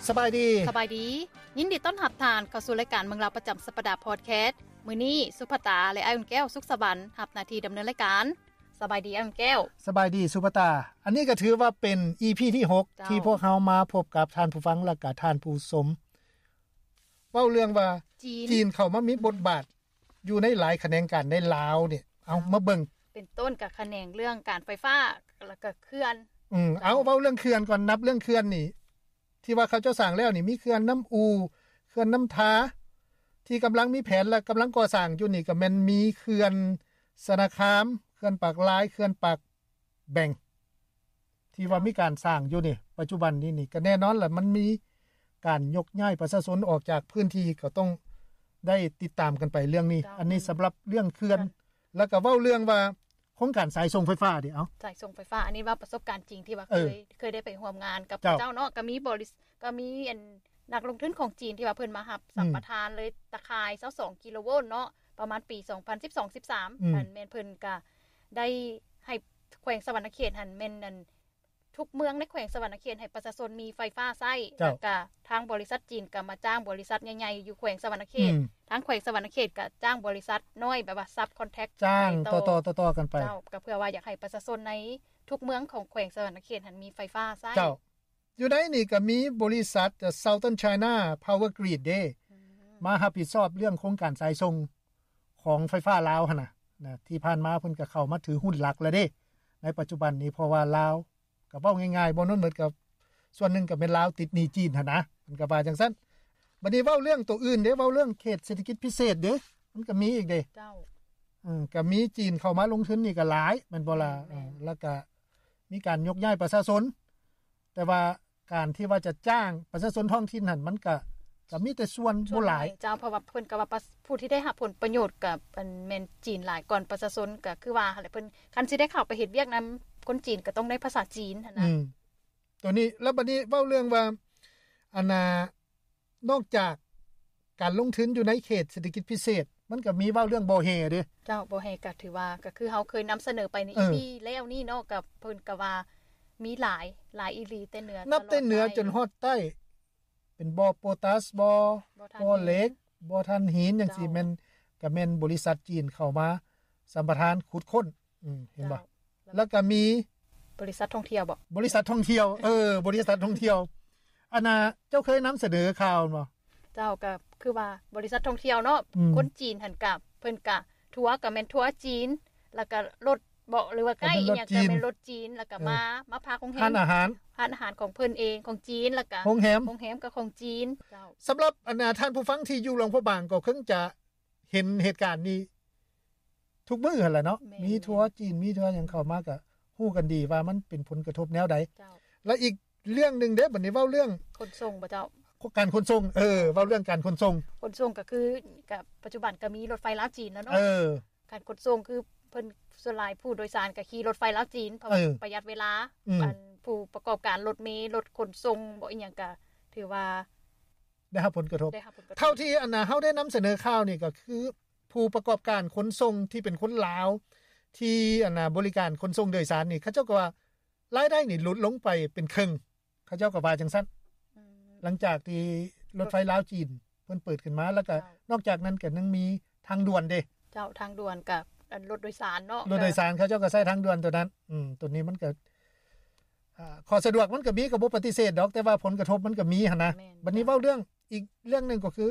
ສະບາຍດີ ສະບາຍດີ ຍິນດີຕ້ອນຮັບທ່ານເຂົ້າສູ່ລາຍການເມືອງລາວປະຈຳສັບປະດາພອດແຄສ. ມື້ນີ້ສຸພາຕາ ແລະ ອ້າຍອຸ່ນແກ້ວ ສຸກສະຫວັນ ຮັບໜ້າທີ່ດຳເນີນລາຍການ. ສະບາຍດີອ້າຍອຸ່ນແກ້ວ. ສະບາຍດີສຸພາຕາ. ອັນນີ້ກໍຖືວ່າເປັນ ອີພີ ທີຫົກ ເຈົ້າ ທີ່ພວກເຮົາມາພົບກັບທ່ານຜູ້ຟັງ ແລະ ກະທ່ານຜູ້ຊົມ ເວົ້າເລື່ອງວ່າ ຈີນ ຈີນເຂົ້າມາມີບົດບາດຢູ່ໃນຫຼາຍຂະແໜງການໃນລາວນີ້. ເອົາ ເຈົ້າ ມາເບິ່ງ ເປັນຕົ້ນກະຂະແໜງເລື່ອງການໄຟຟ້າ ແລ້ວກະເຂື່ອນ. ອືມ ເຈົ້າ ເອົາ ເວົ້າເລື່ອງເຂື່ອນກ່ອນ. ນັບເລື່ອງເຂື່ອນນີ້ ທີ່ວ່າເຂົາເຈົ້າສ້າງແລ້ວນີ້ ມີເຂື່ອນນ້ຳອູ່ ເຂື່ອນນ້ຳທາ ທີ່ກຳລັງມີແຜນ ແລະ ກຳລັງກໍ່ສ້າງຢູ່ນີ້ ກໍແມ່ນມີເຂື່ອນຊະນະຄາມ ເຂື່ອນປາກລາຍ ເຂື່ອນປາກແບງ ທີ່ວ່າມີການສ້າງຢູ່ນີ້ ປັດຈຸບັນນີ້ນີ້ ກໍແນ່ນອນລະ ມັນມີການຍົກຍ້າຍປະຊາຊົນອອກຈາກພື້ນທີ່ ກໍຕ້ອງໄດ້ຕິດຕາມກັນໄປເລື່ອງນີ້. ເຈົ້າ ອັນນີ້ສຳລັບເລື່ອງເຂື່ອນ ແລ້ວກໍເວົ້າເລື່ອງວ່າໂຄງການສາຍສົ່ງໄຟຟ້າເດ. ເອົາ ສາຍສົ່ງໄຟຟ້າ ອັນນີ້ເວົ້າປະສົບການຈິງທີ່ວ່າເຄີຍ ເຄີຍໄດ້ໄປຮ່ວມງານກັບເຂົາເຈົ້າເນາະ. ກໍມີບໍລິ ກໍມີອັນ ນັກລົງທຶນຂອງຈີນທີ່ວ່າເພິ່ນມາຮັບສຳປະທານເລີຍ ຕາຂ່າຍຊາວສອງກິໂລໂວນເນາະ ປະມານປີສອງພັນສິບສອງ ສິບສາມ ອັນແມ່ນເພິ່ນກະໄດ້ໃຫ້ແຂວງສະຫວັນນະເຂດຫັ້ນ ແມ່ນອັນ ທຸກເມືອງໃນແຂວງສະຫວັນນະເຂດໃຫ້ປະຊາຊົນມີໄຟຟ້າໃຊ້. ເຈົ້າ ແລ້ວກະທາງບໍລິສັດຈີນກະມາຈ້າງບໍລິສັດໃຫຍ່ໆຢູ່ແຂວງສະຫວັນນະເຂດ. ອືມ ທາງແຂວງສະຫວັນນະເຂດກະຈ້າງບໍລິສັດນ້ອຍ ແບບວ່າ subcontract ຈ້າງຕໍ່ໆກັນໄປ. ເຈົ້າ ກໍເພື່ອວ່າຢາກໃຫ້ປະຊາຊົນໃນທຸກເມືອງຂອງແຂວງສະຫວັນນະເຂດຫັ້ນມີໄຟຟ້າໃຊ້. ເຈົ້າ ຢູ່ໃນນີ້ກໍມີບໍລິສັດ Southern China Power Grid ເດ້ ອືມ ມາຮັບຜິດຊອບເລື່ອງໂຄງການສາຍສົ່ງຂອງໄຟຟ້າລາວຫັ້ນນະ ນະ ທີ່ຜ່ານມາເພິ່ນກໍເຂົ້າມາຖືຫຸ້ນຫຼັກແລ້ວເດ້. ໃນປັດຈຸບັນນີ້ ເພາະວ່າລາວ ກໍເວົ້າງ່າຍໆ ບໍ່ນັ້ນໝົດກໍສ່ວນໜຶ່ງກໍແມ່ນລາວຕິດໜີ້ຈີນຫັ້ນນະ ເພິ່ນກໍວ່າຈັ່ງຊັ້ນ. ບັດນີ້ເວົ້າເລື່ອງໂຕອື່ນເດ້ ເວົ້າເລື່ອງເຂດເສດຖະກິດພິເສດເດ້ ມັນກໍມີອີກເດ້. ເຈົ້າ ເອີ ກໍມີຈີນເຂົ້າມາລົງທຶນນີ້ກໍຫຼາຍ ແມ່ນບໍ່ລະ? ແມ່ນໆ ເອີ ແລ້ວກໍມີການຍົກຍ້າຍປະຊາຊົນ ແຕ່ວ່າ ການທີ່ວ່າຈະຈ້າງປະຊາຊົນທ້ອງຖິ່ນຫັ້ນ ມັນກະ ກະມີແຕ່ສ່ວນບໍ່ຫຼາຍ. ສ່ວນໜ້ອຍເຈົ້າ ເພາະວ່າເພິ່ນກະວ່າ ປະ ຜູ້ທີ່ໄດ້ຮັບຜົນປະໂຫຍດກະ ອັນ ແມ່ນຈີນຫຼາຍກ່ອນປະຊາຊົນ ກະຄືວ່າຫັ້ນແຫຼະ ເພິ່ນ ຄັນຊິໄດ້ເຂົ້າໄປເຮັດວຽກນຳຄົນຈີນ ກະຕ້ອງໄດ້ພາສາຈີນຫັ້ນນະ. ອືມ ໂຕນີ້ ແລ້ວບັດນີ້ເວົ້າເລື່ອງວ່າ ອັນນ່າ ນອກຈາກການລົງທຶນຢູ່ໃນເຂດເສດຖະກິດພິເສດ ມັນກໍມີເວົ້າເລື່ອງບໍ່ແຮ່ເດ້. ເຈົ້າ ບໍ່ແຮ່ກໍຖືວ່າ ກໍຄືເຮົາເຄີຍນຳສະເໜີໄປໃນ ເອີ ອີພີ ແລ້ວນີ້ເນາະ ກໍເພິ່ນກໍວ່າມີຫຼາຍ ຫຼາຍອີ່ຫຼີ ແຕ່ເໜືອ ນັບແຕ່ເໜືອ ຕະຫຼອດໃຕ້ ຈົນຮອດໃຕ້ ເປັນບໍ່ໂປຕາສ ບໍ່ ບໍ່ຖ່ານ ບໍ່ເຫຼັກ ຫີນ ບໍ່ຖ່ານຫີນ ຈັ່ງຊີ້ ເຈົ້າ ແມ່ນ ກໍແມ່ນບໍລິສັດຈີນເຂົ້າມາສຳປະທານຂຸດຄົ້ນ. ອືມ ເຫັນບໍ່? ເຈົ້າ ແລ້ວກໍມີບໍລິສັດທ່ອງທ່ຽວບໍ? ບໍລິສັດທ່ອງທ່ຽວ ເອີ ບໍລິສັດທ່ອງທ່ຽວ. ອັນນ່າ ເຈົ້າເຄີຍນຳສະເໜີຂ່າວແມ່ນບໍ່? ເຈົ້າ ກໍຄືວ່າບໍລິສັດທ່ອງທ່ຽວເນາະ ອືມ ຄົນຈີນຫັ້ນກະ ເພິ່ນກະ ທົວກະແມ່ນທົວຈີນ ແລ້ວກະລົດເບາະ ຫຼືວ່າໄກ ອີ່ຫຍັງກະແມ່ນລົດຈີນ ແລ້ວກະ ເອີ ມາ ມາພັກໂຮງແຮມ ຮ້ານອາຫານ ຮ້ານອາຫານຂອງເພິ່ນເອງ ຂອງຈີນ ແລ້ວກະໂຮງແຮມ ໂຮງແຮມກະຂອງຈີນ. ເຈົ້າ ສຳລັບ ອັນນ່າ ທ່ານຜູ້ຟັງທີ່ຢູ່ຫຼວງພະບາງກໍຄົງຈະ ເຫັນເຫດການນີ້ທຸກມື້ຫັ້ນແຫຼະເນາະ. ແມ່ນໆ ມີທົວຈີນ ມີທົວຫຍັງເຂົ້າມາກະຮູ້ກັນດີວ່າມັນເປັນຜົນກະທົບແນວໃດ. ເຈົ້າ ແລະ ອີກເລື່ອງໜຶ່ງເດ້ ບັດນີ້ເວົ້າເລື່ອງຂົນສົ່ງບໍ່ເຈົ້າ? ການຂົນສົ່ງ ເອີ ເວົ້າເລື່ອງການຂົນສົ່ງ. ຂົນສົ່ງກະຄື ກະປັດຈຸບັນກະມີລົດໄຟລາວຈີນແລ້ວເນາະ. ເອີ ການຂົນສົ່ງຄືເພິ່ນ ສ່ວນຫຼາຍຜູ້ໂດຍສານກະຂີ່ລົດໄຟລາວຈີນ ເພາະວ່າ ເອີ ປະຢັດເວລາ. ອືມ ອັນຜູ້ປະກອບການລົດເມ ລົດຂົນສົ່ງບໍ່ ອີ່ຫຍັງກະຖືວ່າ ໄດ້ຮັບຜົນກະທົບ ໄດ້ຮັບຜົນກະທົບ. ເທົ່າທີ່ ອັນນ່າ ເຮົາໄດ້ນຳສະເໜີຂ່າວນີ້ ກໍຄືຜູ້ປະກອບການຂົນສົ່ງທີ່ເປັນຄົນລາວ ທີ່ ອັນນ່າ ບໍລິການຂົນສົ່ງໂດຍສານນີ້ ເຂົາເຈົ້າກໍວ່າລາຍໄດ້ນີ້ຫຼຸດລົງໄປເປັນເຄິ່ງ ເຂົາເຈົ້າກໍວ່າຈັ່ງຊັ້ນ. ອືມ ຫຼັງຈາກທີ່ລົດໄຟລາວຈີນເພິ່ນເປີດຂຶ້ນມາ ແລ້ວກໍ ເຈົ້າ ນອກຈາກນັ້ນກໍຍັງມີທາງດ່ວນເດ້. ເຈົ້າ ທາງດ່ວນກັບ ອັນ ລົດໂດຍສານເນາະ ລົດໂດຍສານ ເຂົາເຈົ້າກໍໃຊ້ທາງດ່ວນໂຕນັ້ນ. ອືມ ໂຕນີ້ມັນກໍ ອ່າ ຂໍ້ສະດວກມັນກໍມີ ກໍບໍ່ປະຕິເສດດອກ ແຕ່ວ່າຜົນກະທົບມັນກໍມີຫັ້ນນະ. ແມ່ນ ບັດນີ້ເວົ້າເລື່ອງ ອີກເລື່ອງໜຶ່ງກໍຄື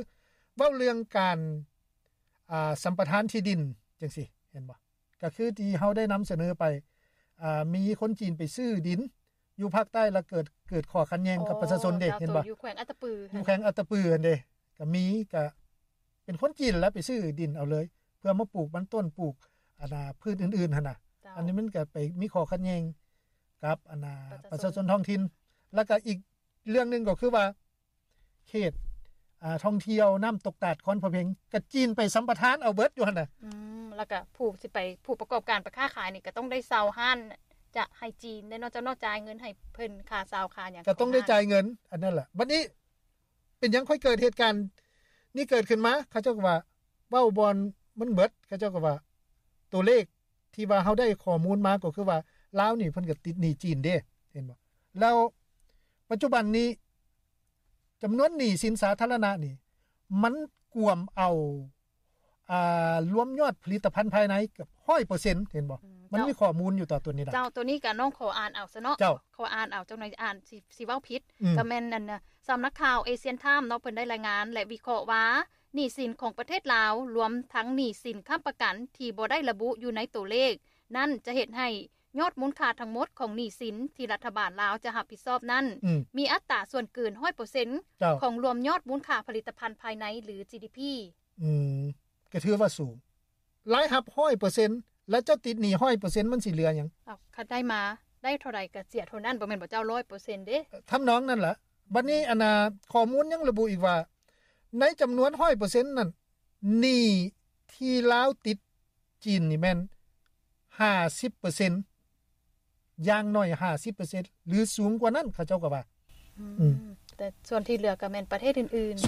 ເວົ້າເລື່ອງການ ອ່າ ສຳປະທານທີ່ດິນຈັ່ງຊີ້ ເຫັນບໍ່? ກໍຄືທີ່ເຮົາໄດ້ນຳສະເໜີໄປ ອ່າ ມີຄົນຈີນໄປຊື້ດິນຢູ່ພາກໃຕ້ ແລ້ວເກີດ ເກີດຂໍ້ຂັດແຍ່ງກັບປະຊາຊົນເດ້. ເຫັນບໍ່? ຢູ່ແຂວງອັດຕະປື ຢູ່ແຂວງອັດຕະປືຫັ້ນເດ້ ກໍມີ ກໍເປັນຄົນຈີນແຫຼະໄປຊື້ດິນເອົາເລີຍ ເພື່ອມາປູກມັນຕົ້ນ ປູກ ອັນນ່າ ພືດອື່ນໆຫັ້ນນະ. ເຈົ້າ ອັນນີ້ມັນກໍໄປມີຂໍ້ຂັດແຍ່ງກັບ ອັນນ່າ ປະຊາຊົນ ປະຊາຊົນທ້ອງຖິ່ນ. ແລ້ວກໍອີກເລື່ອງໜຶ່ງກໍຄືວ່າ ເຂດ ອ່າ ທ່ອງທ່ຽວນ້ຳຕົກຕາດຄອນພະເພັງ ກໍຈີນໄປສຳປະທານເອົາເບິດຢູ່ຫັ້ນນະ. ອືມ ແລ້ວກໍຜູ້ຊິໄປ ຜູ້ປະກອບການໄປຄ້າຂາຍນີ້ ກໍຕ້ອງໄດ້ເຊົ່າຮ້ານ ຈະໃຫ້ຈີນແນ່ເນາະ ເຈົ້າເນາະ ຈ່າຍເງິນໃຫ້ເພິ່ນ ຄ່າເຊົ່າຄ່າຫຍັງ ກໍຕ້ອງໄດ້ຈ່າຍເງິນ ອັນນັ້ນແຫຼະ. ບັດນີ້ ເປັນຫຍັງຄ່ອຍເກີດເຫດການນີ້ເກີດຂຶ້ນມາ? ເຂົາເຈົ້າກໍວ່າ ເວົ້າບ່ອນມັນເບິດ ເຂົາເຈົ້າກໍວ່າ ຕົວເລກທີ່ວ່າເຮົາໄດ້ຂໍ້ມູນມາກໍຄືວ່າ ລາວນີ້ເພິ່ນກໍຕິດໜີ້ຈີນເດ້ ເຫັນບໍ່? ແລ້ວປັດຈຸບັນນີ້ ຈຳນວນໜີ້ສິນສາທາລະນະນີ້ ມັນກວມເອົາ ອ່າ ລວມຍອດຜະລິດຕະພັນພາຍໃນເກືອບຮ້ອຍເປີເຊັນ ເຫັນບໍ່? ອືມ ມັນມີຂໍ້ມູນຢູ່ຕໍ່ຕົວນີ້ລະ. ເຈົ້າ ຕົວນີ້ກະນ້ອງຂໍອ່ານເອົາຊະເນາະ. ເຈົ້າ ຂໍອ່ານເອົາ ຈັກໜ່ອຍອ່ານຊິ ຊິເວົ້າຜິດ. ອືມ ກະແມ່ນອັນ ສຳນັກຂ່າວ Asian Times ເນາະ ເພິ່ນໄດ້ລາຍງານ ແລະ ວິເຄາະວ່າ ໜີ້ສິນຂອງປະເທດລາວ ລວມທັງໜີ້ສິນຄ້ຳປະກັນທີ່ບໍ່ໄດ້ລະບຸຢູ່ໃນຕົວເລກນັ້ນ ຈະເຮັດໃຫ້ຍອດມູນຄ່າທັງໝົດຂອງໜີ້ສິນທີ່ລັດຖະບານລາວຈະຮັບຜິດຊອບນັ້ນ ອືມ ມີອັດຕາສ່ວນເກີນຮ້ອຍເປີເຊັນ ເຈົ້າ ຂອງລວມຍອດມູນຄ່າຜະລິດຕະພັນພາຍໃນ ຫຼື ຈີດີພີ. ອືມ ກະຖືວ່າສູງ. ລາຍຮັບຮ້ອຍເປີເຊັນ ແລ້ວເຈົ້າຕິດໜີ້ຮ້ອຍເປີເຊັນ ມັນຊິເຫຼືອຫຍັງ? ເອົ້າ ຄັນໄດ້ມາ ໄດ້ເທົ່າໃດກະເສຍເທົ່ານັ້ນ ບໍ່ແມ່ນບໍ່ເຈົ້າ ຮ້ອຍເປີເຊັນເດ້. ທຳນອງນັ້ນລະ. ບັດນີ້ ອັນນ່າ ຂໍ້ມູນຍັງລະບຸອີກວ່າ ໃນຈຳນວນຮ້ອຍເປີເຊັນນັ້ນ ໜີ້ທີ່ລາວຕິດຈີນນີ້ແມ່ນຫ້າສິບເປີເຊັນ ຢ່າງໜ້ອຍຫ້າສິບເປີເຊັນ ຫຼື ສູງກວ່ານັ້ນ ເຂົາເຈົ້າກໍວ່າ. ອືມ ອືມ ແຕ່ສ່ວນທີ່ເຫຼືອກໍແມ່ນປະເທດອື່ນໆ.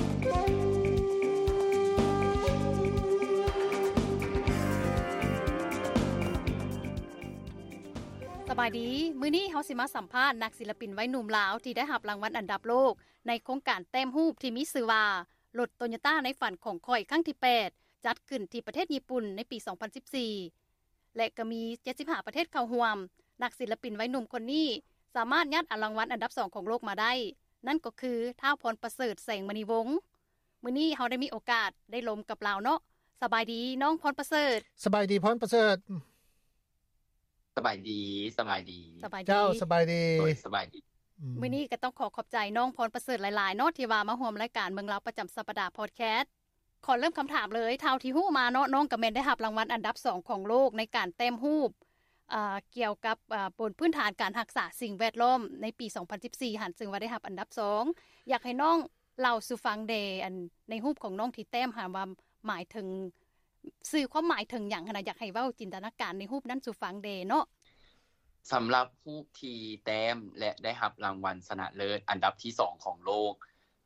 ສະບາຍດີ, ມື້ນີ້ເຮົາຊິມາສຳພາດນັກສິລະປິນໄວໜຸ່ມລາວທີ່ໄດ້ຮັບລາງວັນອັນດັບໂລກ ໃນໂຄງການແຕ້ມຮູບທີ່ມີຊື່ວ່າ ລົດໂຕໂຍຕ້າໃນຝັນຂອງຂ້ອຍ ຄັ້ງທີແປດ ຈັດຂຶ້ນທີ່ປະເທດຍີ່ປຸ່ນໃນປີສອງພັນສິບສີ່ ແລະ ກໍມີເຈັດສິບຫ້າປະເທດເຂົ້າຮ່ວມ. ນັກສິລະປິນໄວໜຸ່ມຄົນນີ້ສາມາດຍາດເອົາລາງວັນອັນດັບສອງຂອງໂລກມາໄດ້, ນັ້ນກໍຄື ທ້າວ ພອນປະເສີດ ແສງມະນີວົງ. ມື້ນີ້ເຮົາໄດ້ມີໂອກາດໄດ້ລົມກັບລາວເນາະ. ສະບາຍດີ ນ້ອງ ພອນປະເສີດ. ສະບາຍດີ ພອນປະເສີດ. ສະບາຍດີ ສະບາຍດີ ສະບາຍດີ ເຈົ້າ ສະບາຍດີ ໂດຍ ສະບາຍດີ. ອືມ ມື້ນີ້ກໍຕ້ອງຂໍຂອບໃຈນ້ອງ ພອນປະເສີດ ຫຼາຍໆເນາະ ທີ່ວ່າມາຮ່ວມລາຍການເບິ່ງລາວປະຈຳສັບປະດາ Podcast. ຂໍເລີ່ມຄຳຖາມເລີຍ, ເທົ່າທີ່ຮູ້ມາເນາະ ນ້ອງກໍແມ່ນໄດ້ຮັບລາງວັນອັນດັບສອງຂອງໂລກໃນການແຕ້ມຮູບ ເອີ ກ່ຽວກັບ ເອີ ບົນພື້ນຖານການຮັກສາສິ່ງແວດລ້ອມໃນປີສອງພັນສິບສີ່ຫັ້ນ ເຊິ່ງວ່າໄດ້ຮັບອັນດັບສອງ. ຢາກໃຫ້ນ້ອງເລົ່າສູ່ຟັງແດ່ ອັນ ໃນຮູບຂອງນ້ອງທີ່ແຕ້ມຫັ້ນວ່າໝາຍເຖິງ ສື່ຄວາມໝາຍເຖິງຫຍັງຫັ້ນນະ? ຢາກໃຫ້ເວົ້າຈິນຕະນາການໃນຮູບນັ້ນສູ່ຟັງແດ່ເນາະ. ສຳລັບຮູບທີ່ແຕ້ມ ແລະ ໄດ້ຮັບລາງວັນຊະນະເລີດອັນດັບທີສອງຂອງໂລກ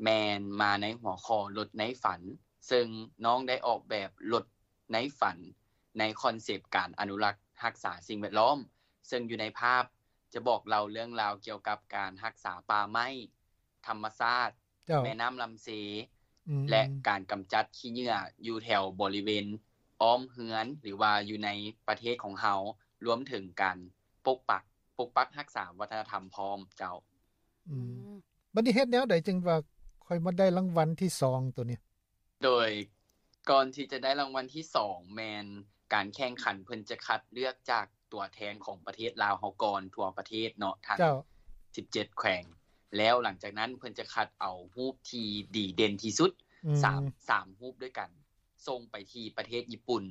ແມ່ນມາໃນຫົວຂໍ້ລົດໃນຝັນ, ເຊິ່ງນ້ອງໄດ້ອອກແບບລົດໃນຝັນ ໃນຄອນເຊັບການອະນຸລັກຮັກສາສິ່ງແວດລ້ອມ, ເຊິ່ງຢູ່ໃນພາບຈະບອກເລົ່າເລື່ອງລາວກ່ຽວກັບການຮັກສາປ່າໄມ້, ທຳມະຊາດ, ເຈົ້າ ແມ່ນ້ຳລຳເຊ ອືມ ແລະ ການກຳຈັດຂີ້ເຫຍື້ອຢູ່ແຖວບໍລິເວນອ້ອມເຮືອນ ຫຼືວ່າຢູ່ໃນປະເທດຂອງເຮົາ, ລວມເຖິງການປົກປັກ ປົກປັກຮັກສາວັດທະນະທຳພ້ອມເຈົ້າ. ອືມ ອືມ ບັດນີ້ເຮັດແນວໃດຈຶ່ງວ່າຄ່ອຍມາໄດ້ລາງວັນທີສອງໂຕນີ້? ໂດຍ ກ່ອນທີ່ຈະໄດ້ລາງວັນທີສອງ ແມ່ນການແຂ່ງຂັນເພິ່ນຈະຄັດເລືອກຈາກຕົວແທນຂອງປະເທດລາວເຮົາກ່ອນ ທົ່ວປະເທດເນາະ ທັງ ເຈົ້າ ສິບເຈັດແຂວງ, ແລ້ວຫຼັງຈາກນັ້ນເພິ່ນຈະຄັດເອົາຮູບທີ່ດີເດັ່ນທີ່ສຸດ ອືມ ສາມ ສາມຮູບດ້ວຍກັນ ສົ່ງໄປທີ່ປະເທດຍີ່ປຸ່ນ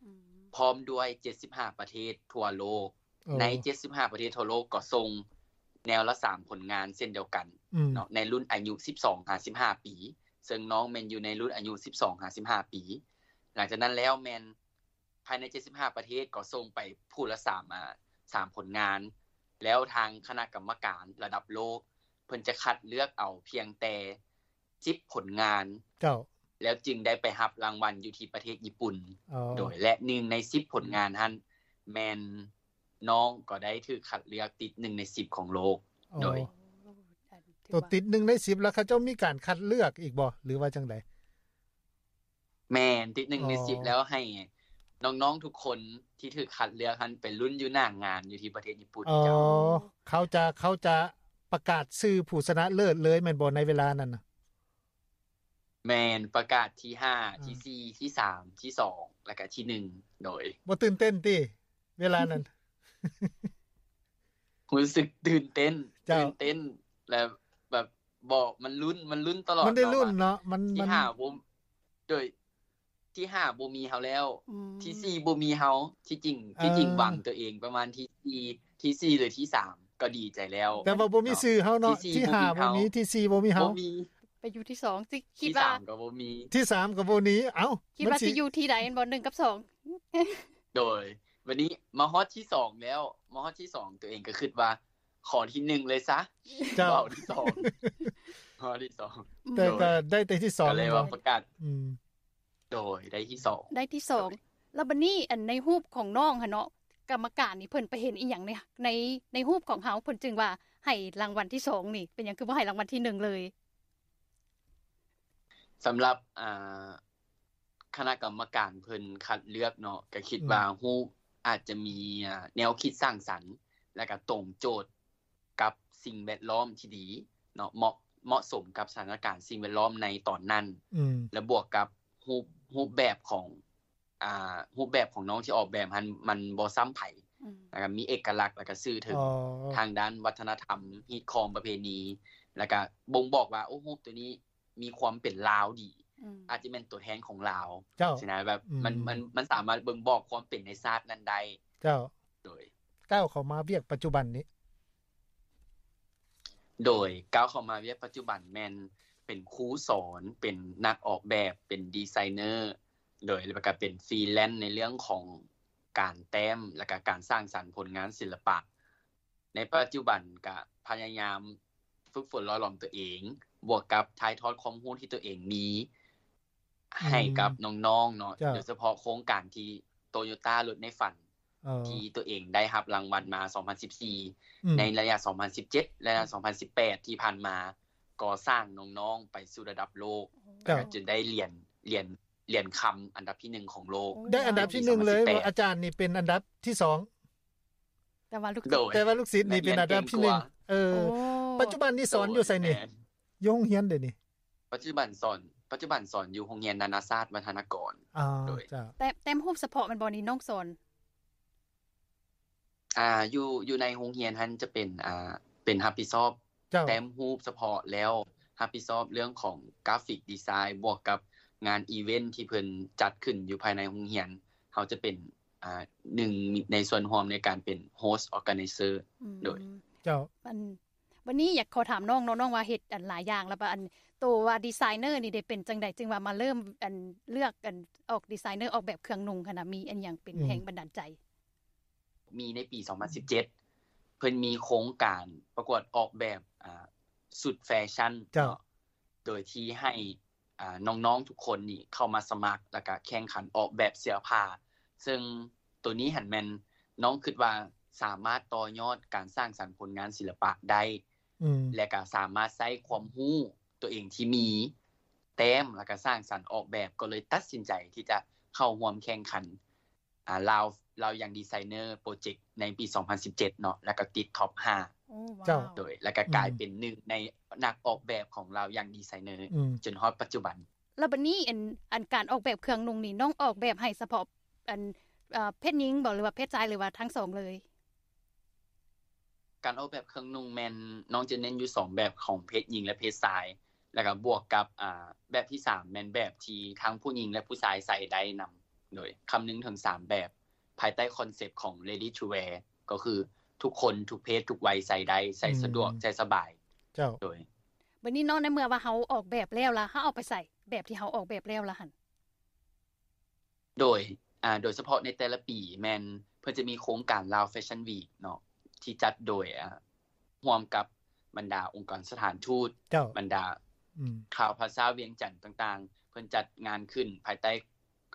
ອືມ ພ້ອມດ້ວຍເຈັດສິບຫ້າປະເທດທົ່ວໂລກ. ໂອ້ ໃນເຈັດສິບຫ້າປະເທດທົ່ວໂລກກໍສົ່ງແນວລະສາມຜົນງານເຊັ່ນດຽວກັນ ອືມ ເນາະ ໃນລຸ້ນອາຍຸສິບສອງຫາສິບຫ້າປີ, ເຊິ່ງນ້ອງແມ່ນຢູ່ໃນລຸ້ນອາຍຸສິບສອງຫາສິບຫ້າປີ. ຫຼັງຈາກນັ້ນແລ້ວແມ່ນພາຍໃນເຈັດສິບຫ້າປະເທດກໍສົ່ງໄປຜູ້ລະສາມ ອາ ສາມຜົນງານ, ແລ້ວທາງຄະນະກຳມະການລະດັບໂລກ ເພິ່ນຈະຄັດເລືອກເອົາພຽງແຕ່ ສິບຜົນງານ ເຈົ້າ ແລ້ວຈຶ່ງໄດ້ໄປຮັບລາງວັນຢູ່ທີ່ປະເທດຍີ່ປຸ່ນ. ອໍ ໂດຍ ແລະ ໜຶ່ງໃນສິບຜົນງານຫັ້ນ ແມ່ນນ້ອງກໍໄດ້ຖືກຄັດເລືອກຕິດໜຶ່ງໃນສິບຂອງໂລກ. ອໍ ໂດຍ ໂຕຕິດໜຶ່ງໃນສິບ ແລ້ວເຂົາເຈົ້າມີການຄັດເລືອກອີກບໍ່ ຫຼືວ່າຈັ່ງໃດ? ແມ່ນ ຕິດໜຶ່ງໃນສິບ ອໍ ແລ້ວໃຫ້ນ້ອງໆທຸກຄົນທີ່ຖືກຄັດເລືອກຫັ້ນໄປລຸ້ນຢູ່ໜ້າງານຢູ່ທີ່ປະເທດຍີ່ປຸ່ນ. ອໍ ເຈົ້າ ເຂົາຈະ ເຂົາຈະປະກາດຊື່ຜູ້ຊະນະເລີດເລີຍແມ່ນບໍ່ ໃນເວລານັ້ນນະ? ແມ່ນ ປະກາດທີຫ້າ ອ່າ ທີສີ່ ທີສາມ ທີສອງ ແລ້ວກະທີໜຶ່ງ. ໂດຍ ບໍ່ຕື່ນເຕັ້ນຕິ ເວລານັ້ນ? ຮູ້ສຶກຕື່ນເຕັ້ນ ເຈົ້າ ຕື່ນເຕັ້ນ ແລ້ວແບບ ບໍ່ ມັນລຸ້ນ ມັນລຸ້ນຕະຫຼອດ ມັນໄດ້ລຸ້ນເນາະ ເນາະ ມັນ ທີຫ້າບໍ່ ໂດຍ ທີຫ້າບໍ່ມີເຮົາແລ້ວ ອືມ ທີສີ່ບໍ່ມີເຮົາ. ທີ່ຈິງ ເອີ ທີ່ຈິງຫວັງຕົວເອງປະມານທີສີ່ ທີສີ່ ຫຼື ທີສາມ ກໍດີໃຈແລ້ວ ແຕ່ວ່າບໍ່ມີຊື່ເຮົາເນາະ. ທີຫ້າບໍ່ມີ ທີສີ່ບໍ່ມີເຮົາ ບໍ່ມີ ໄປຢູ່ທີສອງ ຄິດ ຄິດວ່າ ທີສາມກໍບໍ່ມີ ທີສາມກໍບໍ່ມີ. ເອົ້າ ຄິດວ່າຊິຢູ່ທີໃດແມ່ນບໍ່ ໜຶ່ງກັບສອງ? ໂດຍ ບັດນີ້ມາຮອດທີສອງແລ້ວ ມາຮອດທີສອງ ຕົວເອງກໍຄິດວ່າຂໍທີໜຶ່ງເລີຍຊະ ເຈົ້າ ບໍ່ເອົາທີສອງ ມາຮອດທີສອງ ແຕ່ກໍໄດ້ແຕ່ທີສອງ ກໍເລີຍວ່າປະກາດ ອືມ ໂດຍ ໄດ້ທີສອງ ໄດ້ທີສອງ. ໂດຍ ແລ້ວບັດນີ້ ອັນ ໃນຮູບຂອງນ້ອງຫັ້ນເນາະ ກຳມະການນີ້ເພິ່ນໄປເຫັນອີ່ຫຍັງໃນ ໃນ ໃນຮູບຂອງເຮົາ ເພິ່ນຈຶ່ງວ່າໃຫ້ລາງວັນທີສອງນີ້ ເປັນຫຍັງຄືບໍ່ໃຫ້ລາງວັນທີໜຶ່ງເລີຍ? ສຳລັບ ອ່າ ຄະນະກຳມະການເພິ່ນຄັດເລືອກເນາະ ກໍຄິດ ອືມ ວ່າຮູບອາດຈະມີ ອ່າ ແນວຄິດສ້າງສັນ ແລະກໍຕົງໂຈດກັບສິ່ງແວດລ້ອມທີ່ດີເນາະ ເໝາະ ເໝາະສົມກັບສະຖານະການສິ່ງແວດລ້ອມໃນຕອນນັ້ນ ອືມ ແລະບວກກັບຮູບ ຮູບແບບຂອງ ອ່າ ຮູບແບບຂອງນ້ອງທີ່ອອກແບບຫັ້ນ ມັນບໍ່ຊ້ຳໃຜ ອືມ ແລ້ວກໍມີເອກະລັກ ແລ້ວກໍສື່ເຖິງ ອໍ ທາງດ້ານວັດທະນະທຳ ຮີດຄອງ ປະເພນີ ແລ້ວກໍບົ່ງບອກວ່າ ໂອ້ ຮູບໂຕນີ້ມີຄວາມເປັນລາວດີ ອືມ ອາດຈະແມ່ນຕົວແທນຂອງລາວ ເຈົ້າ ຊີ້ນະ ແບບ ອືມ ມັນ ມັນ ມັນສາມາດບົ່ງບອກຄວາມເປັນໃນຊາດນັ້ນໄດ້ ເຈົ້າ ໂດຍ ກ້າວເຂົ້າມາວຽກປັດຈຸບັນນີ້ ໂດຍ ກ້າວເຂົ້າມາວຽກປັດຈຸບັນແມ່ນເປັນຄູສອນ ເປັນນັກອອກແບບ ເປັນດີໄຊເນີ ໂດຍ ແລ້ວກໍເປັນຟຣີແລນໃນເລື່ອງຂອງການແຕ້ມ ແລ້ວກໍການສ້າງສັນຜົນງານສິລະປະ. ໃນປັດຈຸບັນກະພະຍາຍາມຝຶກຝົນຫຼໍ່ຫຼອມຕົວເອງ ບວກກັບຖ່າຍທອດຄວາມຮູ້ທີ່ຕົວເອງມີ ອືມ ໃຫ້ກັບນ້ອງໆເນາະ ເຈົ້າ ໂດຍສະເພາະໂຄງການທີ່ໂຕໂຍຕ້າລົດໃນຝັນ ເອີ ທີ່ຕົວເອງໄດ້ຮັບລາງວັນມາສອງພັນສິບສີ່ ອືມ ໃນໄລຍະສອງພັນສິບເຈັດ ແລະ ສອງພັນສິບແປດ ທີ່ຜ່ານມາ ກໍສ້າງນ້ອງໆໄປສູ່ລະດັບໂລກ ເຈົ້າ ແລ້ວກໍຈົນໄດ້ຫຼຽນ ຫຼຽນ ຫຼຽນຄຳອັນດັບທີໜຶ່ງຂອງໂລກ ໂອ້ ໄດ້ອັນດັບທີໜຶ່ງເລີຍ ໃນປີສອງພັນສິບແປດ ອາຈານນີ້ເປັນອັນດັບທີສອງ ແຕ່ວ່າລູກ ໂດຍ ແຕ່ວ່າລູກສິດນີ້ເປັນອັນດັບທີໜຶ່ງ ແມ່ນເກັ່ງກວ່າ ເອີ ໂອ້ ປັດຈຸບັນນີ້ສອນຢູ່ໃສນີ້? ໂດຍ ແມ່ນ ຢູ່ໂຮງຮຽນເດນີ້? ປັດຈຸບັນສອນ ປັດຈຸບັນສອນຢູ່ໂຮງຮຽນນານາຊາດວັດທະນະກອນ ອໍ ໂດຍ ເຈົ້າ ແຕ້ມ ແຕ້ມຮູບສະເພາະແມ່ນບໍ່ນີ້ນ້ອງສອນ? ອ່າ ຢູ່ ຢູ່ໃນໂຮງຮຽນຫັ້ນຈະເປັນ ອ່າ ເປັນຮັບຜິດຊອບ ເຈົ້າ ແຕ້ມຮູບສະເພາະ ແລ້ວຮັບຜິດຊອບເລື່ອງຂອງກຣາຟິກດີໄຊ ບວກກັບງານອີເວັນທີ່ເພິ່ນຈັດຂຶ້ນຢູ່ພາຍໃນໂຮງຮຽນ ເຮົາຈະເປັນ ອ່າ ໜຶ່ງໃນສ່ວນຮ່ວມໃນການເປັນ host organizer ອືມ ໂດຍ ເຈົ້າ ອັນ ບັດນີ້ຢາກຂໍຖາມນ້ອງເນາະ ນ້ອງວ່າເຮັດອັນຫຼາຍຢ່າງ ແລ້ວບາດອັນໂຕວ່າດີໄຊເນີນີ້ເດ ເປັນຈັ່ງໃດຈຶ່ງວ່າມາເລີ່ມອັນເລືອກອັນອອກດີໄຊເນີອອກແບບເຄື່ອງນຸ່ງຫັ້ນນະ ມີອັນຫຍັງເປັນ ອືມ ແຮງບັນດານໃຈ? ມີໃນປີສອງພັນສິບເຈັດ ເພິ່ນມີໂຄງການປະກວດອອກແບບ ອ່າ ຊຸດແຟຊັ່ນ ເຈົ້າ ເນາະ ໂດຍທີ່ໃຫ້ ອ່າ ນ້ອງໆທຸກຄົນນີ້ເຂົ້າມາສະໝັກ ແລ້ວກະແຂ່ງຂັນອອກແບບເສື້ອຜ້າ ເຊິ່ງໂຕນີ້ຫັ້ນແມ່ນນ້ອງຄິດວ່າສາມາດຕໍ່ຍອດການສ້າງສັນຜົນງານສິລະປະໄດ້ ອືມ ແລະກະສາມາດໃຊ້ຄວາມຮູ້ໂຕເອງທີ່ມີແຕ້ມ ແລ້ວກະສ້າງສັນອອກແບບ ກໍເລີຍຕັດສິນໃຈທີ່ຈະເຂົ້າຮ່ວມແຂ່ງຂັນ ອ່າ ລາວ ລາວຍັງດີໄຊເນີໂປຣເຈັກໃນປີສອງພັນສິບເຈັດເນາະ ແລ້ວກໍຕິດທັອບຫ້າ ໂອ້ ເຈົ້າ ວ້າວ ໂດຍ ແລ້ວກໍກາຍ ອືມ ເປັນໜຶ່ງໃນນັກອອກແບບຂອງລາວຍັງດີໄຊເນີ ອືມ ຈົນຮອດປັດຈຸບັນ. ແລ້ວບັດນີ້ອັນ ອັນການອອກແບບເຄື່ອງນຸ່ງນີ້ ນ້ອງອອກແບບໃຫ້ສະເພາະອັນ ເອີ ເພດຍິງບໍ ຫຼືວ່າເພດຊາຍ ຫຼືວ່າທັງສອງເລີຍ? ການອອກແບບເຄື່ອງນຸ່ງແມ່ນນ້ອງຈະເນັ້ນຢູ່ສອງແບບ ຂອງເພດຍິງ ແລະ ເພດຊາຍ ແລ້ວກໍບວກກັບ ອ່າ ແບບທີສາມແມ່ນແບບທີ່ທັງຜູ້ຍິງ ແລະ ຜູ້ຊາຍໃສ່ໄດ້ນຳ ໂດຍຄຳນຶງເຖິງສາມແບບ ພາຍໃຕ້ຄອນເຊັບຂອງ Ready to Wear ກໍຄືທຸກຄົນ ທຸກເພດ ທຸກໄວໃສ່ໄດ້ ໃສ່ສະດວກ ອືມ ໃສ່ສະບາຍ ເຈົ້າ ໂດຍ ບັດນີ້ເນາະ ໃນເມື່ອວ່າເຮົາອອກແບບແລ້ວລະ ເຮົາເອົາໄປໃສ່ແບບທີ່ເຮົາອອກແບບແລ້ວລະຫັ້ນ? ໂດຍ ອ່າ ໂດຍສະເພາະໃນແຕ່ລະປີແມ່ນເພິ່ນຈະມີໂຄງການ Lao Fashion Week ເນາະ ທີ່ຈັດໂດຍ ອ່າ ຮ່ວມກັບບັນດາອົງກອນສະຖານທູດ ເຈົ້າ ບັນດາ ອືມ ຂ່າວພາສາວຽງຈັນຕ່າງໆ ເພິ່ນຈັດງານຂຶ້ນພາຍໃຕ້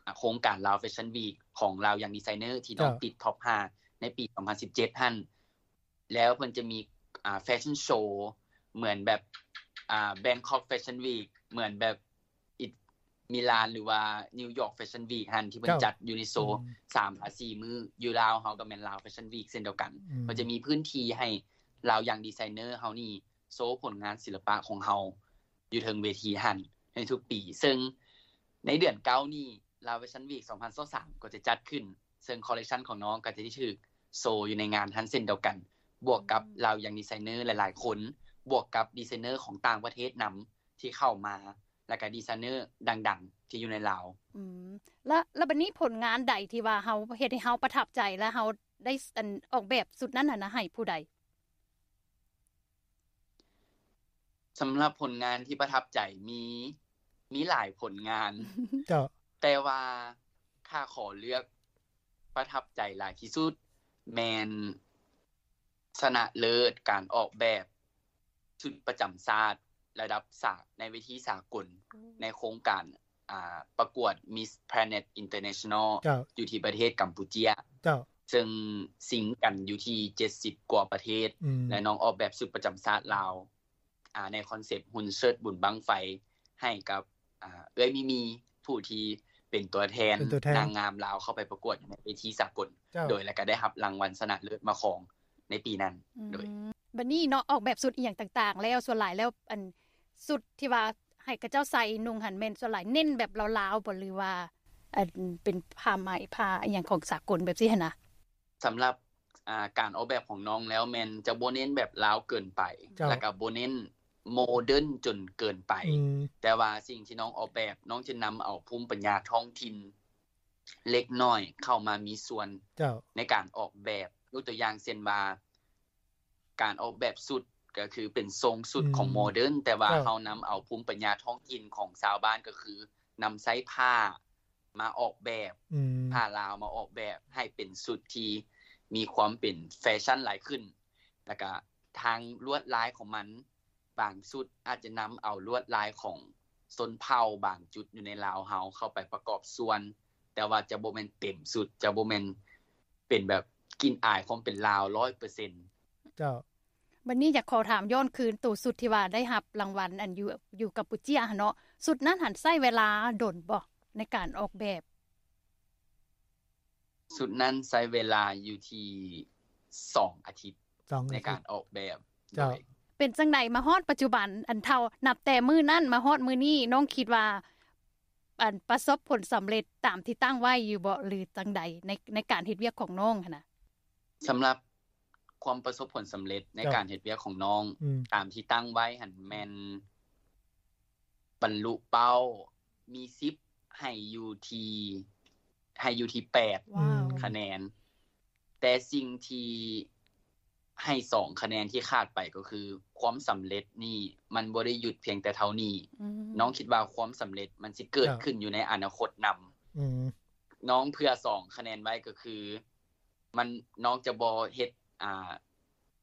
ອ່າ ໂຄງການ Lao Fashion Week ຂອງລາວຍັງດີໄຊເນີ ທີ່ນ້ອງ ເຈົ້າ ຕິດທັອບຫ້າໃນປີສອງພັນສິບເຈັດຫັ້ນ ແລ້ວເພິ່ນຈະມີ ອ່າ ແຟຊັ່ນໂຊ ເໝືອນແບບ ອ່າ Bangkok Fashion Week ເໝືອນແບບ ອິດ ມິລານ ຫຼືວ່າ New York Fashion Week ຫັ້ນ ທີ່ເພິ່ນ ເຈົ້າ ຈັດຢູ່ໃນໂຊ ອືມ ສາມຫາສີ່ມື້. ຢູ່ລາວເຮົາກໍແມ່ນ Lao Fashion Week ເຊັ່ນດຽວກັນ ອືມ ເພິ່ນຈະມີພື້ນທີ່ໃຫ້ລາວຍັງດີໄຊເນີເຮົານີ້ໂຊຜົນງານສິລະປະຂອງເຮົາຢູ່ເທິງເວທີຫັ້ນໃນທຸກປີ ເຊິ່ງໃນເດືອນເກົ້ານີ້ Lao Fashion Week ສອງພັນຊາວສາມ ກໍຈະຈັດຂຶ້ນ ເຊິ່ງ collection ຂອງນ້ອງກໍຈະໄດ້ຖືກໂຊຢູ່ໃນງານຫັ້ນເຊັ່ນດຽວກັນ ບວກກັບ ອືມ ລາວຍັງດີໄຊເນີຫຼາຍໆຄົນ ບວກກັບດີໄຊເນີຂອງຕ່າງປະເທດນຳທີ່ເຂົ້າມາ ແລ້ວກະດີໄຊເນີດັງໆທີ່ຢູ່ໃນລາວ. ອືມ ແລ້ວ ແລ້ວບັດນີ້ຜົນງານໃດທີ່ວ່າເຮົາ ເຮັດໃຫ້ເຮົາປະທັບໃຈ ແລະ ເຮົາໄດ້ ອັນ ອອກແບບຊຸດນັ້ນຫັ້ນນະ ໃຫ້ຜູ້ໃດ? ສຳລັບຜົນງານທີ່ປະທັບໃຈ ມີ ມີຫຼາຍຜົນງານ ເຈົ້າ ແຕ່ວ່າຖ້າຂໍເລືອກປະທັບໃຈຫຼາຍທີ່ສຸດ ແມ່ນຊະນະເລີດການອອກແບບຊຸດປະຈຳຊາດລະດັບສາ ໃນເວທີສາກົນ ໂອ້ ໃນໂຄງການ ອ່າ ປະກວດ Miss Planet International ເຈົ້າ ຢູ່ທີ່ປະເທດກຳປູເຈຍ ເຈົ້າ ເຊິ່ງຊິງກັນຢູ່ທີ່ເຈັດສິບກວ່າປະເທດ ອືມ ແລະ ນ້ອງອອກແບບຊຸດປະຈຳຊາດລາວ ອ່າ ໃນຄອນເຊັບຮຸນເຊີດບຸນບັ້ງໄຟ ໃຫ້ກັບ ອ່າ ເອື້ອຍມີມີ ຜູ້ທີ່ເປັນຕົວແທນ ເປັນຕົວແທນນາງງາມລາວເຂົ້າໄປປະກວດໃນເວທີສາກົນ ເຈົ້າ ໂດຍ ແລ້ວກໍໄດ້ຮັບລາງວັນຊະນະເລີດມາຄອງໃນປີນັ້ນ ອືມ ໂດຍ ບັດນີ້ເນາະ ອອກແບບຊຸດອີ່ຫຍັງຕ່າງໆແລ້ວ ສ່ວນຫຼາຍແລ້ວ ອັນ ຊຸດທີ່ວ່າໃຫ້ເຂົາເຈົ້າໃສ່ນຸ່ງຫັ້ນ ແມ່ນສ່ວນຫຼາຍເນັ້ນແບບລາວໆບໍ່ ຫຼືວ່າ ອັນ ເປັນຜ້າໄໝ ຜ້າອີ່ຫຍັງຂອງສາກົນແບບຊີ້ຫັ້ນນະ? ສຳລັບ ອ່າ ການອອກແບບຂອງນ້ອງແລ້ວ ແມ່ນຈະບໍ່ເນັ້ນແບບລາວເກີນໄປ ເຈົ້າ ແລ້ວກໍບໍ່ເນັ້ນໂມເດີນຈົນເກີນໄປ ອືມ ແຕ່ວ່າສິ່ງທີ່ນ້ອງອອກແບບ ນ້ອງຈະນຳເອົາພູມປັນຍາທ້ອງຖິ່ນເລັກນ້ອຍເຂົ້າມາມີສ່ວນ ເຈົ້າ ໃນການອອກແບບ ຍົກຕົວຢ່າງເຊັ່ນວ່າ ການອອກແບບຊຸດ ກໍຄືເປັນຊົງຊຸດ ອືມ ຂອງໂມເດີນ ແຕ່ວ່າ ເຈົ້າ ເຮົານຳເອົາພູມປັນຍາທ້ອງຖິ່ນຂອງຊາວບ້ານ ກໍຄືນຳໃຊ້ຜ້າ ມາອອກແບບ ອືມ ຜ້າລາວມາອອກແບບໃຫ້ເປັນຊຸດທີ່ມີຄວາມເປັນແຟຊັ່ນຫຼາຍຂຶ້ນ ແລ້ວກະທາງລວດລາຍຂອງມັນ ບາງຊຸດອາດຈະນຳເອົາລວດລາຍຂອງຊົນເຜົ່າບາງຈຸດຢູ່ໃນລາວເຮົາເຂົ້າໄປປະກອບສ່ວນ ແຕ່ວ່າຈະບໍ່ແມ່ນເຕັມຊຸດ ຈະບໍ່ແມ່ນເປັນແບບກິ່ນອາຍຄວາມເປັນລາວຮ້ອຍເປີເຊັນ. ເຈົ້າ. ບັດນີ້ຢາກຂໍຖາມຍ້ອນຄືນໂຕຊຸດທີ່ວ່າໄດ້ຮັບລາງວັນ ອັນຢູ່ ຢູ່ກຳປູເຈຍຫັ້ນເນາະ ຊຸດນັ້ນຫັ້ນໃຊ້ເວລາດົນບໍ່ໃນການອອກແບບ? ຊຸດນັ້ນໃຊ້ເວລາຢູ່ທີ່ສອງອາທິດ ສອງອາທິດໃນການອອກແບບ. ເຈົ້າ. ໂດຍ ເປັນຈັ່ງໃດມາຮອດປັດຈຸບັນ ອັນເທົ່າ ນັບແຕ່ມື້ນັ້ນມາຮອດມື້ນີ້ ນ້ອງຄິດວ່າ ອັນປະສົບຜົນສຳເລັດຕາມທີ່ຕັ້ງໄວ້ຢູ່ບໍ່ ຫຼືຈັ່ງໃດ ໃນ ໃນການເຮັດວຽກຂອງນ້ອງຫັ້ນນະ? ສຳລັບຄວາມປະສົບຜົນສຳເລັດໃນ ເຈົ້າ ການເຮັດວຽກຂອງນ້ອງ ອືມ ຕາມທີ່ຕັ້ງໄວ້ຫັ້ນແມ່ນບັນລຸເປົ້າ ມີສິບໃຫ້ຢູ່ທີ່ ໃຫ້ຢູ່ທີ່ແປດ ວ້າວ ຄະແນນ ແຕ່ສິ່ງທີ່ໃຫ້ສອງຄະແນນທີ່ຂາດໄປກໍຄື ຄວາມສຳເລັດນີ້ມັນບໍ່ໄດ້ຢຸດພຽງແຕ່ເທົ່ານີ້. ອືມ ນ້ອງຄິດວ່າຄວາມສຳເລັດມັນຊິເກີດ ເຈົ້າ ຂຶ້ນຢູ່ໃນອະນາຄົດນຳ. ອືມ ນ້ອງເຜື່ອສອງຄະແນນໄວ້ກໍຄື ມັນ ນ້ອງຈະບໍ່ເຮັດ ອ່າ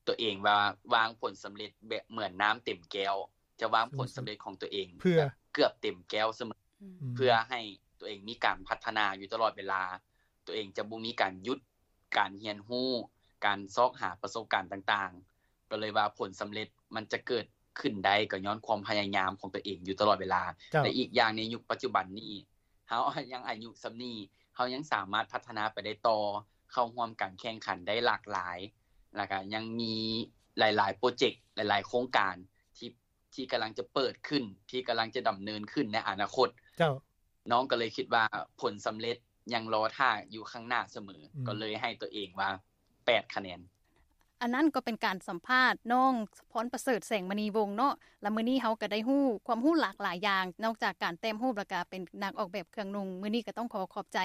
ຕົວເອງວ່າວາງຜົນສຳເລັດແບບເໝືອນນ້ຳເຕັມແກ້ວ ຈະວາງຜົນສຳເລັດຂອງຕົວເອງ ເພື່ອ ແບບເກືອບເຕັມແກ້ວສະເໝີ ອືມ ເພື່ອໃຫ້ຕົວເອງມີການພັດທະນາຢູ່ຕະຫຼອດເວລາ ຕົວເອງຈະບໍ່ມີການຢຸດການຮຽນຮູ້ ການຊອກຫາປະສົບການຕ່າງໆ ກໍເລີຍວ່າຜົນສຳເລັດມັນຈະເກີດຂຶ້ນໄດ້ ກໍຍ້ອນຄວາມພະຍາຍາມຂອງຕົວເອງຢູ່ຕະຫຼອດເວລາ. ເຈົ້າ. ແລະ ອີກຢ່າງໃນຍຸກປັດຈຸບັນນີ້ ເຮົາຍັງອາຍຸສ່ຳນີ້ ເຮົາຍັງສາມາດພັດທະນາໄປໄດ້ຕໍ່ ເຂົ້າຮ່ວມການແຂ່ງຂັນໄດ້ຫຼາກຫຼາຍ ແລ້ວກະຍັງມີຫຼາຍໆໂປຣເຈັກ ຫຼາຍໆໂຄງການທີ່ ທີ່ກຳລັງຈະເປີດຂຶ້ນ ທີ່ກຳລັງຈະດຳເນີນຂຶ້ນໃນອະນາຄົດ. ເຈົ້າ. ນ້ອງກໍເລີຍຄິດວ່າຜົນສຳເລັດຍັງລໍຖ້າຢູ່ຂ້າງໜ້າສະເໝີ ອືມ ກໍເລີຍໃຫ້ຕົວເອງວ່າແປດຄະແນນ. ອັນນັ້ນກໍເປັນການສຳພາດນ້ອງພອນປະເສີດ ແສງມະນີວົງເນາະ ແລະ ມື້ນີ້ເຮົາກໍໄດ້ຮູ້ຄວາມຮູ້ຫຼາກຫຼາຍຢ່າງ ນອກຈາກການແຕ້ມຮູບ ແລ້ວກໍເປັນນັກອອກແບບເຄື່ອງນຸ່ງ. ມື້ນີ້ກໍຕ້ອງຂໍຂອບໃຈ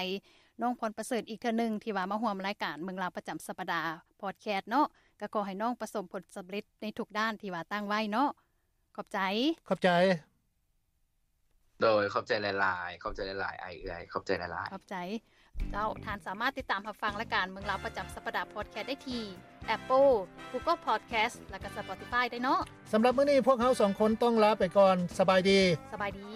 ນ້ອງພອນປະເສີດອີກເທື່ອໜຶ່ງ ທີ່ວ່າມາຮ່ວມລາຍການເມືອງລາວປະຈຳສັບປະດາພອດແຄສເນາະ ກໍຂໍໃຫ້ນ້ອງປະສົບຜົນສຳເລັດໃນທຸກດ້ານທີ່ວ່າຕັ້ງໄວ້ເນາະ. ຂອບໃຈ. ຂອບໃຈ. ໂດຍ ຂອບໃຈຫຼາຍໆ ຂອບໃຈຫຼາຍໆ ອ້າຍເອື້ອຍ ຂອບໃຈຫຼາຍໆ. ຂອບໃຈ. ເຈົ້າ ທ່ານສາມາດຕິດຕາມຮັບຟັງລາຍການເມືອງລາວປະຈຳສັບປະດາພອດແຄສໄດ້ທີ່ Apple, Google Podcast ແລະ ກໍ Spotify ໄດ້ເນາະ. ສຳລັບມື້ນີ້ພວກເຮົາສອງຄົນຕ້ອງລາໄປກ່ອນ. ສະບາຍດີ. ສະບາຍດີ.